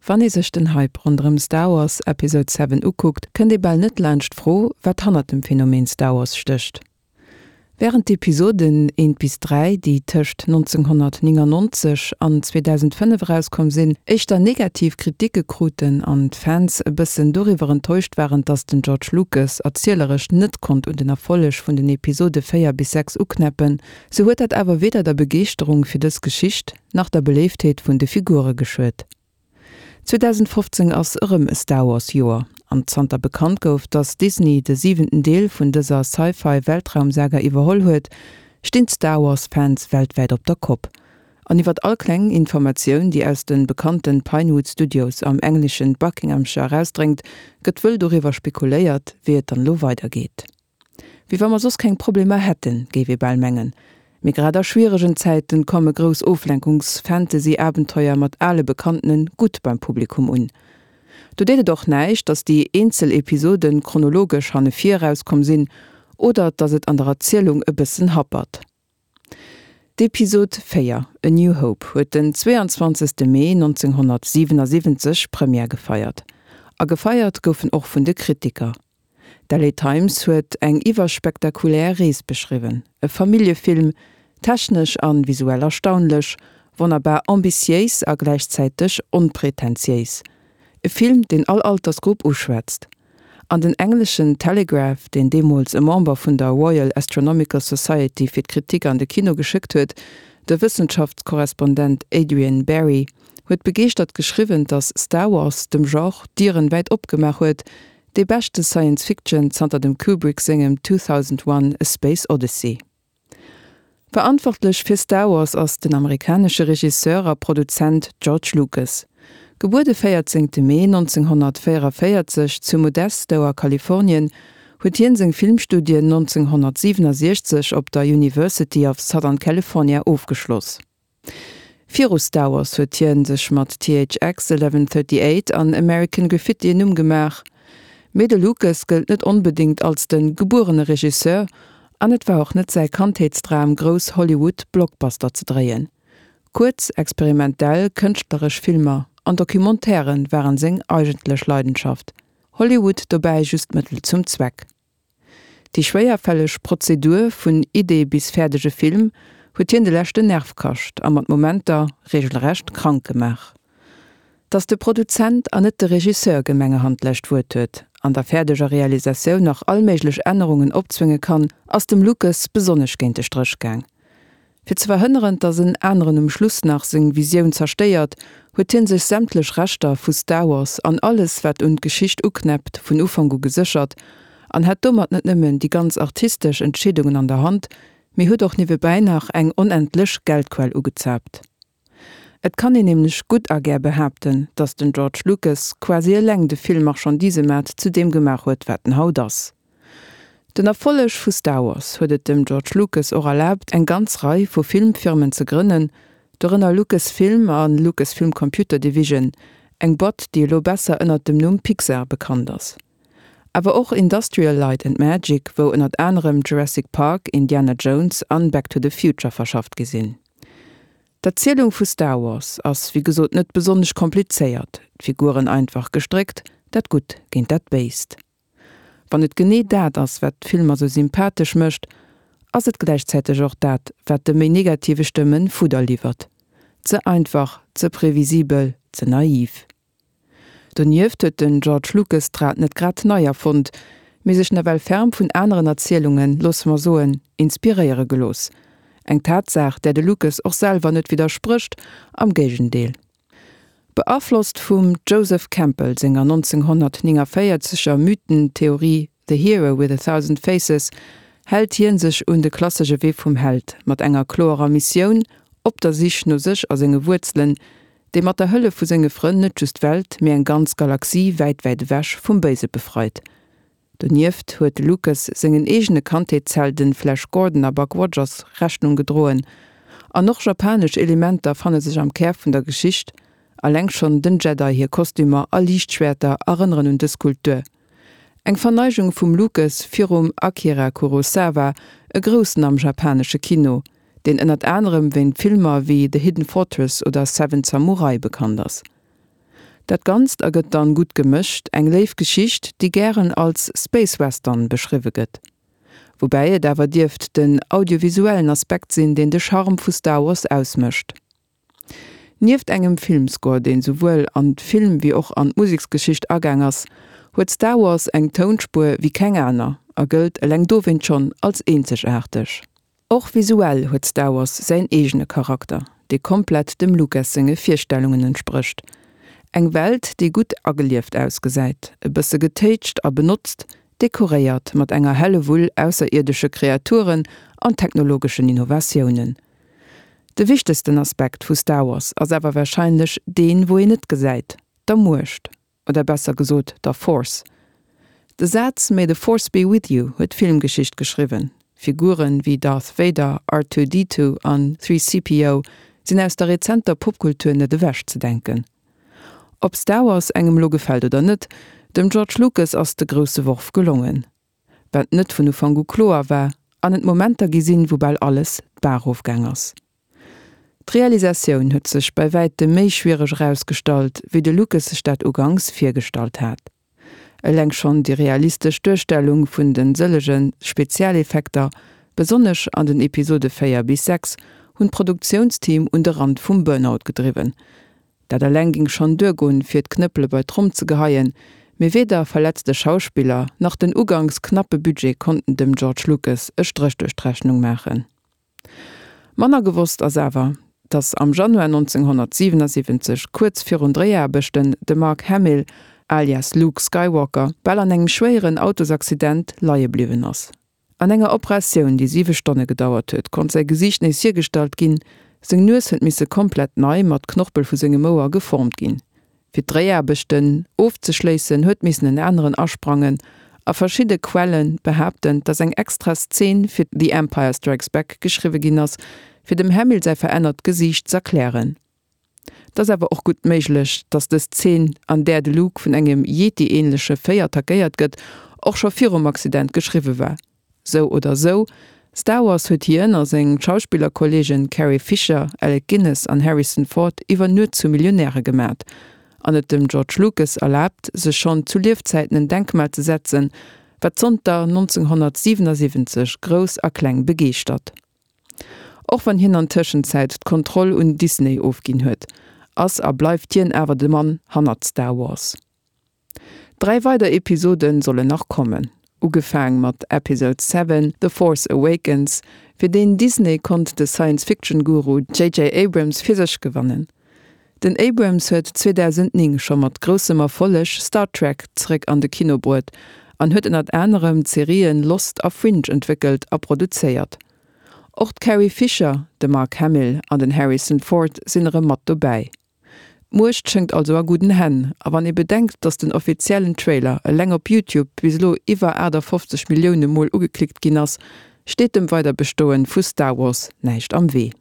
Wann ee sech den Hype ronderëm Star Wars Episode 7 ukuckt, kënnt ee bal net laanscht d'Fro, wat hannert dem Phänomen Star Wars stécht. Wärend d'Episoden eent bis 3, déi tëscht 1999 an 2005 erauskomm sinn, éischter negativ Kriticke kruten an d'Fans e bëssen doriwwer enttäuscht waren, dass den George Lucas erzieleresch net konnt un den Erfolleg vun den Episode 4 bis 6 uknäppen, sou huet dat awer weder der Begeeschterung fir dës Geschicht, nach der Beléiftheet vun de Figure geschuet. 2015 ass erëm e Star Wars Joer, an zanter bekannt gouf, dass Disney de siwenten Deel vun dëser Sci-Fi Weltraumsaga iwwerholl huet, stinn d'Star Wars Fans weltwäit op der Kopp. An iwwert all kleng Informatioun, déi aus de bekannten Pinewood Studios am engleschen Buckinghamshire erausdréngt, gëtt wëll doriwwer spekuléiert, wéi et dann elo weidergeet. Wéi wa mer soss keng Problemer hätten, géif ee bal mengen. Mee grad a schwieregen Zäiten komme grouss Oflenkungs-Fantasy-Abenteuer mat ale Bekanntene gutt beim Publikum un. Do deet et och näischt, datt déi eenzel Episoden chronologesch hanne vir erauskomm sinn oder datt et an der Erzielung e bëssen happert. D'Episod 4, A New Hope huet den 22. Mee 1977 Première gefeiert. A gefeiert gouf en och vun de Kritiker. D'LA Times huet eng iwwerspektakulär Rees beschriwwen, e Familljefilm, technesch an visuell erstaunlech, wonnerbar ambitiéis a gläichzäiteg onpretentiéis. E Film, deen all Altersgrupp uschwätzt. An den engleschen Telegraph, deen deemools e Member vun der Royal Astronomical Society fir d'Kritik an de Kino geschéckt huet, de Wëssenschaftskorrespondent Adrian Barry, huet begeeschtert geschriwwen, datt Star Wars dem Genre d'Dieren wäit opgemaach huet, dee beschte Science Fiction zanter dem Kubrick sengem 2001, A Space Odyssey. Verantwortlech fir Star Wars ass den amerikanesche Regisseur a Produzent George Lucas. Gebuer de 14 Mee 1944 zu Modesto a Kalifornien, huet hien seng Filmstudien 1967 op der University of Southern California ofgeschloss. Viru Star Wars huet hien sech mat THX 1138 an American Graffiti en Numm gemaach. Mee de Lucas gëllt net onbedéngt als de gebuerene Regisseur an et war och net säi Kandheetsdram grouss Hollywood Blockbuster ze dréien. Kuerz, experimentell, kënschtleresch Filmer an Documentairen waren seng eigentlech Leidenschaft. Hollywood dobäi just Mëttel zum Zweck. Déi schwéierfälleg Prozedur vun Idee bis fäerdege Film huet hien de leschten Nerv kascht a mat Momenter reegelrecht krank gemaach. Datt de Produzent an net de Regisseur gemengerhand d'lescht Wuert huet, an der fäerdeger Realisatioun nach all méiglech Ännerungen opzwénge kann, ass dem Lucas besonnesch géint de Stréch gaang. Fir ze verhënneren, datt en aneren um Schluss nach seng Visioun zerstéiert, huet hien sech sämtlech Rechter vu Star Wars an alles wat un d'Geschicht uknäppt vun Ufank u geséchert an hat domat net nëmmen déi ganz artistesch Entscheedungen an der Hand, mee huet och niewebäi nach eng onendlech Geldquell ugezaapt. Et kann een nämlech gutt a gär behaapten, datt den George Lucas quasi eleng de Film-Marchandisemaart zu deem gemaach huet, wat en haut ass. Den Erfolleg vu Star Wars huet et dem George Lucas och erlaabt, eng ganz Rei vu Filmfirmen ze grënnen, dorënner Lucasfilm a Lucasfilm Computer Division, eng Boîte, déi elo besser ënnert dem Numm Pixar bekannt ass. Awer och Industrial Light and Magic, wou ënnert anerem Jurassic Park, Indiana Jones an Back to the Future verschafft gi sinn. D'Erzielung vu Star Wars ass wéi gesot net besonnesch komplizéiert, d'Figuren einfach gestréckt, dat Gutt géint dat Béist. Wann et genee dat ass, wat d'Filmer sou sympathesch mécht, ass et gläichzäiteg och dat, wat de méi negative Stëmmen Fudder liwwert. Ze einfach, ze previsibel, ze naiv. Donieft huet den George Lucas d'Rad net grad nei erfonnt, mee sech nawell ferm vun aneren Erzielungen, loosse mer soen, inspiréiere gelooss. Eng Tatsaach, där de Lucas och selwer net widdersprécht, am Géigendeel. Beaflosst vum Joseph Campbell senger 1949 er Mythentheorie The Hero with a Thousand Faces hält hien sech un de klassesche Wee vum Held, mat enger kloerer Missioun, op der Sich no sech a senge Wuerzelen, dee mat der Hëllef vu senge Frënn net just d'Welt, mee eng ganz Galaxie wäit, wäit ewech vum Béise befreit. Donieft huet de Lucas sengen eegene Kandheetshelden Flash Gordon a Buck Rogers Rechnung gedroen. An och japanesch Elementer fanne sech am Kär vun der Geschicht, alleng schonn den Jedi hir Kostümer a Liichtschwäerter erënneren un dës Kultur. Eng Verneigung vum Lucas virum Akira Kurosawa, e Groussen am japanesche Kino, deen ënnert anerem wéint Filmer wéi The Hidden Fortress oder Seven Samurai bekannt ass. Dat Ganzt ergëtt dann, gutt gemëscht, eng léif Geschicht, déi gären als Space Western beschriwwe gëtt. Woubäi et awer dierft den audiovisuellen Aspekt sinn, deen de Charme vu Star Wars ausmécht. Nieft engem Filmscore, deen souwuel an d'Film wéi och an d'Museksgeschicht agaang ass, huet Star Wars eng Tounspuer wéi keng aner a gëllt eleng dowéint schonn als eenzegaarteg. Och visuell huet Star Wars säin eegene Charakter, dee komplett dem Lucas senge Virstellungen entsprécht. Eng Welt, déi gutt agelieft ausgesäit, e bësse getéitscht a benotzt, dekoréiert mat enger Hellewull ausserierdesche Kreaturen an technologeschen Innovatiounen. De wichtegsten Aspekt vu Star Wars ass awer warscheinlech deen, wou een net gesäit, der Muecht, oder besser gesot der Force. De Saz May the Force be with you huet Filmgeschicht geschriwwen. Figuren wéi Darth Vader, R2-D2 an 3CPO sinn aus der rezenter Popkultur net ewech ze denken. Ob Star Wars engem elo gefält oder net, dem George Lucas ass de grousse Worf gelongen. wat net vun Ufank u kloer war, an et Momenter gi sinn, wou bal alles d'Baach erofgaang ass. D'Realisatioun huet sech bei wäitem méi schwiereg erausgestallt, wéi de Lucas sech dat uganks virgestallt hat. Eleng schonn déi realistesch Duerstellung vun de sëllege Spezialeffekter, besonnesch an den Episode 4 bis 6, hunn d'Produktiounsteam un de Rand vum Burnout gedriwwen. Dat eleng ging schonn duergoen, fir d'Knëppele bei d'Tromm ze geheien, mee weder verletzte Schauspiller nach den uganks knappe Budget konnten dem George Lucas e Stréch duerch d'Rechnung maachen. Manner gewosst ass awer, datt am Januar 1977, kuerz virun Dréiaarbechten, de Mark Hamill, alias Luke Skywalker, bal an engem schwéieren Autosaccident leie bliwwen ass. An enger Operatioun, déi 7 Stonne gedauert huet, konnt säi Gesiicht nees hiergestallt ginn. Seng Nues huet misse komplett nei mat Knorpel vu sengem Ouer geformt ginn. Fir d'Dréiaarbechten ofzeschléissen, huet missen en aneren asprangen a verschidde Quelle behaapten, dass eng extra Szen fir The Empire Strikes Back geschriwwe ginn ass, fir dem Hamill säi verännert Gesiicht z'erklären. Et ass awer och gutt méiglech, dass dës Zeen, an där de Luke vun engem Yeti-änleche Véi attackéiert gëtt, och scho virum Accident geschriwwe war. Sou oder sou, Star Wars huet hien a seng Schauspillerkolleegen Carrie Fisher, Alec Guinness an Harrison Ford iwwer Nuet zu Millionäre gemat an et dem George Lucas erlaabt, sech schonn zu Liefzäiten en Denkmal ze setzen, wat zonter 1977 Grouss a Kleng begeeschtert. Och wann hien an Tëschenzäit d'Kontroll un Disney ofginn huet, ass a bleift hien awer de Mann hannert Star Wars. 3 weider Episode sollen nach kommen, ugefaang mat Episode 7, The Force Awakens, fir deen Disney konnt de Science-Fiction-Guru JJ Abrams fir sech gewannen. Den Abrams huet 2009 scho mat groussem Erfolleg Star Trek zeréck an de Kino bruet an huet ënnert anerem d'Serien Lost a Fringe entwéckelt a produzéiert. Och d'Carrie Fisher, de Mark Hamill an den Harrison Ford sinn erëm mat dobäi. D'Muecht schéngt also a gudden Hänn a wann ee bedenkt, datt den offiziellen Trailer eleng op YouTube bis elo iwwer 58 Millioune Mol ugeklickt ginn ass, steet dem Weiderbestoen vu Star Wars näischt am Wee.